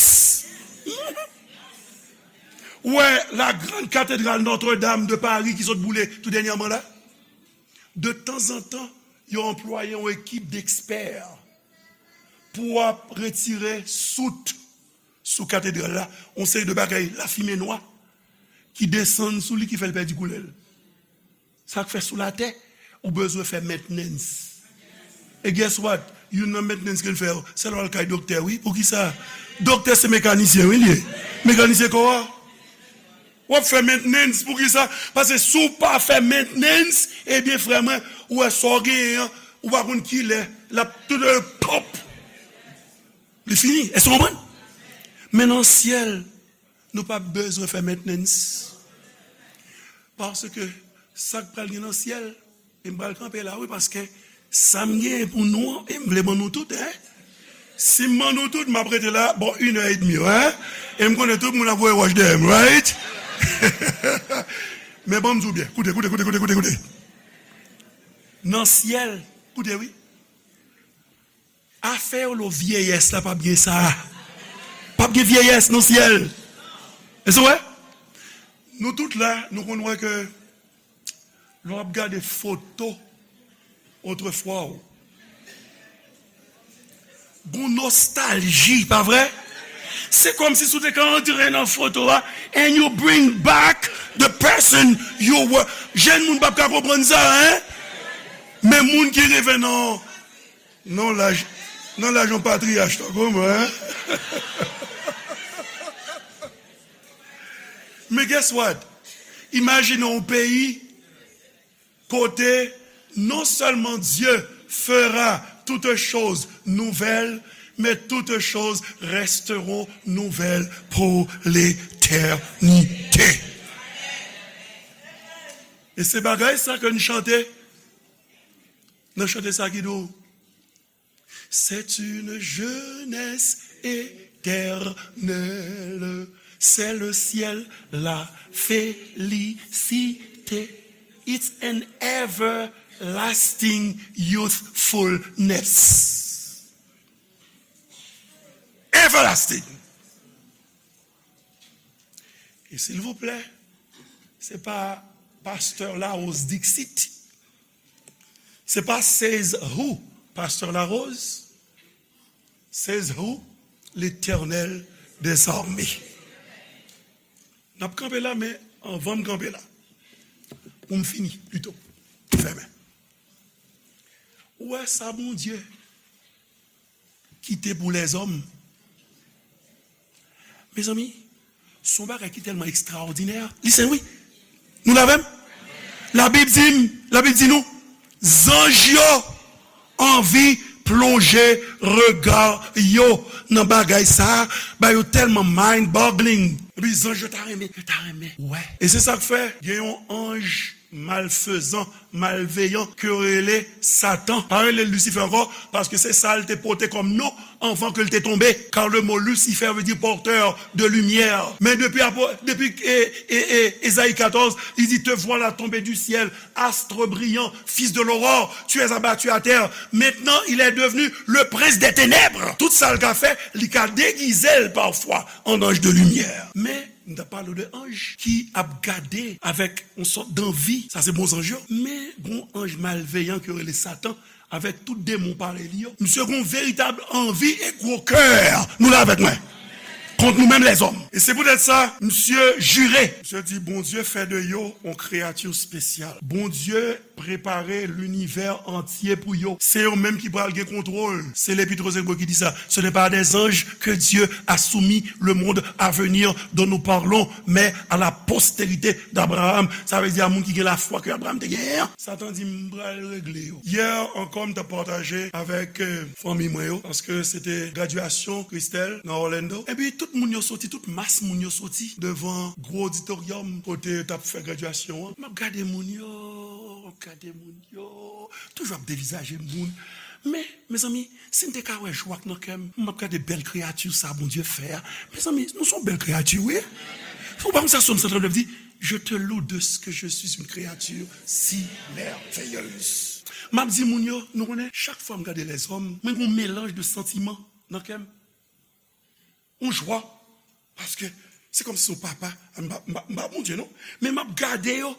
Ou wè la grande cathédrale Notre-Dame de Paris ki sot boule tou dènyèman la. De tanzantan, yo anplwaye yon ekip dekspè pou ap retire sout sou katedral la, yon seri de bagay lafimen nwa ki desann sou li, ki fè l pèdi koulè l. Sa k fè sou latè, ou bezwen fè maintenance. E guess what? Youn nan maintenance ke l fè yo, se lè w al kay doktè, wi. Poukisa? Doktè se mekanisyen, wi, li ye. Mekanisyen kò a. W ap fè maintenance, poukisa? Paske si w pa fè maintenance, ebyen, frè mwen, ou wè sa w genyen an, ou pa konn kilè l ap tout pòp. Li fini. Èske w konprann? Men nan syèl, nou p ap bezwen fè maintenance. Paske sa k pral gen nan syèl, e m pral kanpe la, wi, paske sa m genyen pou nou an, e m vle ban nou tout, en. Si m ban nou tout, m ap rete la, bon, inè edmi, en. E m konnen tout moun ap voye wòch dèyè m, right? Men ban m di w byen, koute, koute, koute, koute, koute, koute. Nan syèl, koute, wi. Afè yo lo vyeyès la p ap gen sa. P ap gen vyeyès nan syèl. Èske w wè? Nou tout la, nou konn wè ke lè w ap gade foto otrefwa w, gon nostalji, pa vre? Se kòmsi si w te ka antre nan foto a and you bring back the person you were. Jèn moun p ap ka konprann sa, en? Men moun ki rive nan Nan laj, nan laj yon patriyach tankou mwen, en? Men guess what? Imajine yon peyi kote non seulement Dieu fera toutes choses nouvelles, mais toutes choses resteront nouvelles pour l'éternité. E se bagay sa ke n chante. Nan chante sa ki di w, c'est une jeunesse éternelle, c'est le ciel, la félicité. It's an everlasting youthfulness. Everlasting. E silvouplè, se pa pastè Larose Dixit. Se pa says who, pastè Larose. Says who? Letènèl dèzame. N ap kanpe la, men anvan m kanpe la, pou m fini, pito, fèmen. Ou wè sa Bondye kite pou lèzòm. Mezanmi, se yon bagay ki tèlman ekstraòdinè. Listen, wi. Nou la avè m? Labib di m, Labib di nou, zanj yo anvi plonje rega yo nan bagay sa a, ba yo tèlman mind-boggling. Epi zanj yo ta renmen, yo ta renmen. Wè. E se sa k fè, gen yon anj malfezan, malveyan, ke yo rele Satan. Pa rele l Lisifè ankò, paske se sa l te pote kòm non anvan ke l te tonbe. Car le mot Lucifer veut dire porteur de lumière. Men depi, depi e, e, e, Ezayi katòz, li di, te voilà tombé du ciel, astre brillant, fils de l'aurore, tu es abattu à terre. Maintenant, il est devenu le prince des ténèbres. Tout sa l ka fè, li ka degize l pafwa an anj de limyè. Men, m t ap pale de anj ki ap gade avèk yon sòt danvi. Sa se bon zanj yo. Men gon anj malveyan ki yo rele Satan, avèk tout demon parèy li yo. Misye gon veritab anvi e gwo kè. Nou la avèk mwen? Kont nou menm lèzòm. E se poutèt sa, misye jire. Misye di, Bondye fè de yo yon kreyati espesyal. Bondye prepare linivè antye pou yo. Se yo menm ki pral gen kontwòl. Se Lepit Rozenbo ki di sa. Ce n'est pas à des anges que Dieu a soumis le monde à venir dont nous parlons, mais à la postérité d'Abraham. Sa vle di a moun ki gen lafwa ke Abraham te genyen an. Satan di, "M pral regle yo." Yè ankò, m t ap pataje avèk, euh, fanmi mwen yo, paske se te gradyasyon Christelle nan Orlando. Epi tout Moun yo soti, tout mas moun yo soti devan gwo oditoryòm kote yo t ap fè gradyasyon an. M ap gade moun yo, m ap gade moun yo, toujou ap devizaje moun. Men, mezanmi, si n te ka wè jwa k nan kè m, m ap gade bèl kreyati sa Bondye fè a. Mezanmi, nou se yon bèl kreyati, wi. Ou pa konn sa Sòm san trannde di, Je te loue de ce que je suis une créature si merveilleuse. M ap di moun yo, nou konnen, chak fwa m gade lèzòm, mwen gen yon melanj de santiman nan kè m. Yon jwa. Paske se kòmsi se yon papa, m pa, m pa, m pa Bondye non, men m ap gade yo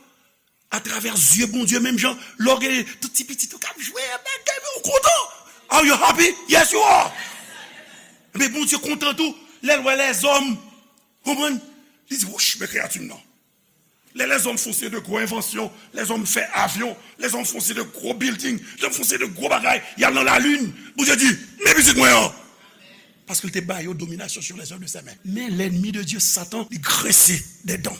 atravè zye Bondye, menm jan lè w gen tout ti pitit ou k ap jwe, bagay, men ou kontan. Are you happy? Yes, you are. Men Bondye kontan tou lè l wè lèzòm. Konprann? Li di, wouch, men kreyati m nan. Lè lèzòm fè yon seri de gwo envansyon, lèzòm fè avyon, lèzòm fè yon seri de gwo bilding, lèzòm fè yon seri de gwo bagay, y al nan lalin, Bondye di, men pitit mwen an. Paske l te ba yo domination sur les œuvres de ses mains. Men lènmi de Dye, Satan, li grense dè dan.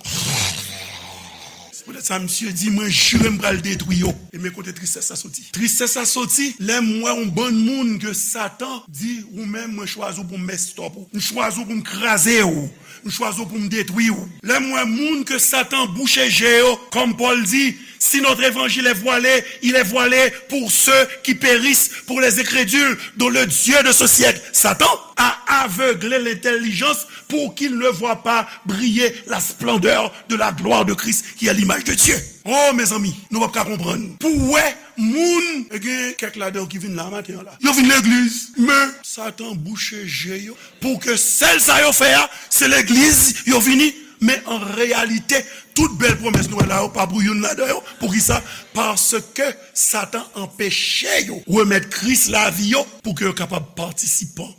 Se poutèt sa, misye di, mwen jire m pral detwi yo. E men kote tristès la soti. Tristès la soti lè m wè yon bann moun ke Satan di, ou menm, mwen chwazi w pou m mess up ou. M chwazi w pou m kraze w. M chwazi w pou m detwi w. Lè m wè moun ke Satan bouche je yo, comme Paul dit, si notre évangile est voilé, il est voilé pour ceux qui périssent, pour les incrédules, dont le Dieu de ce siècle, Satan, a aveuglé l'intelligence pour qu'ils ne voient pas briller la splendeur de la gloire de Christ, qui est l'image de Dieu. Oh, mezanmi, nou p ap ka konprann. Pou w wè moun, e gen kèk ladan yo ki vin la maten an la. Yo vin legliz, men Satan bouche je yo pou ke sèl sa yo fè a, se legliz yo vini. Men an reyalite, tout bèl pwomès nou wè la yo pa pou youn ladan yo. Poukisa? Paske Satan anpeche yo remèt Kris lavi yo pou ke yo kapab patisipan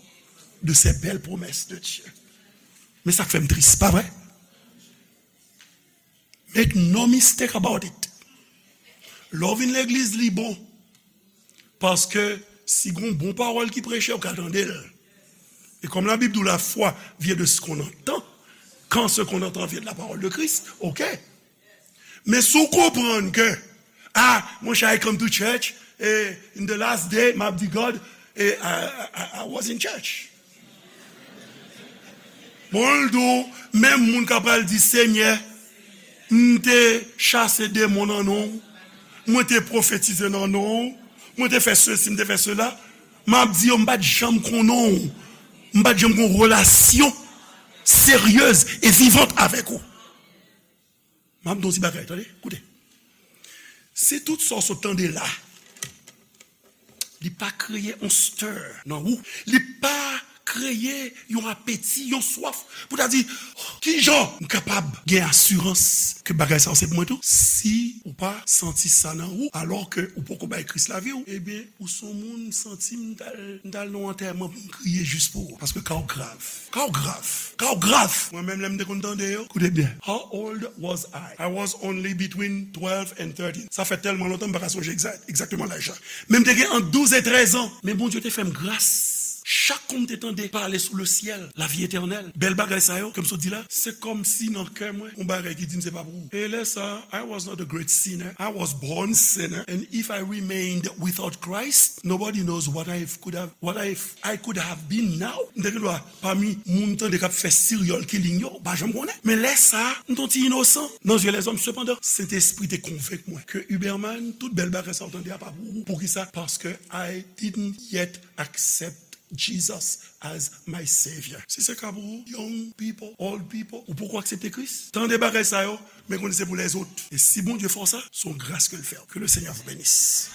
de ces belles promesses de Dieu. Men sa k fè m tris, pa vre? Make no mistake about it. Lè w vin legliz, li bon. Paske si gon bon pawòl ki preche, ou ka tande l. E kòm Labib di w, la foi vient de ce qu'on entend. Quand ce qu'on entend vient de la parole de Christ, ok. Men si w konprann ke, ah, monchè, I come to church, e in the last day, m ap di God, e I, I, I was in church. Bon, l di w, menm moun k ap pral di, Senyè, m te chase demon nan non w, mwen te pwofetize nan non w, mwen te fè sesi, m te fè sela, m ap di yo, m pa t janm konnen w, m pa t janm gen yon relasyon seryez e vivant avèk ou. M ap di w ti bagay, tande, koute. Si tout sa w sot tande la, li pa kreye yon stir nan ou, li pa kreye yon apeti, yon swaf, pou ta di, "Oh, kijan m kapab gen asirans ke bagay sa yo se pou mwen tou?" Si ou pa santi sa nan ou, alò ke ou poko bay Kris lavi w, ebyen, ou se yon moun, m santi m t al, m t al nan yon antèman pou m kriye jis pou ou. Paske ka w grav. Ka w grav. Ka w grav. Mwen menm, lè m te konn tande yo, koute byen. How old was I? I was only between twelve and thirteen. Sa fè tèlman lontan, m pa ka sonje egzak, egzakteman laj la. Men m te gen ant douz e trèz an. Men Bondye te fè m gras. Chak kou m te tande pale sou le ciel, la vie éternelle, bèl bagay sa yo ke m sot di la, se kòmsi nan kè mwen, yon bagay ki di m se pa pou ou. E lè sa, I was not a great sinner. I was born sinner. And if I remained without Christ, nobody knows what I could have, what I, I could have been now. M te gen dwa pami moun tande k ap fè serial killing yo, ou pa janm konnen. Men lè sa, m t on ti inosan nan zye lèzòm. Sepandan, Sentespri te konvenk mwen ke Huberman, tout bèl bagay sa w tande a pa pou ou. Poukisa? Paske I didn't yet accept Jesus as my Savior. Si se ka pou ou, young people, old people, ou poko aksepte Kris, tande bagay sa yo, men konnen se pou lèzòt. E si Bondye fè w sa, se yon gras ke l fè w. Que le Seigneur vous bénisse.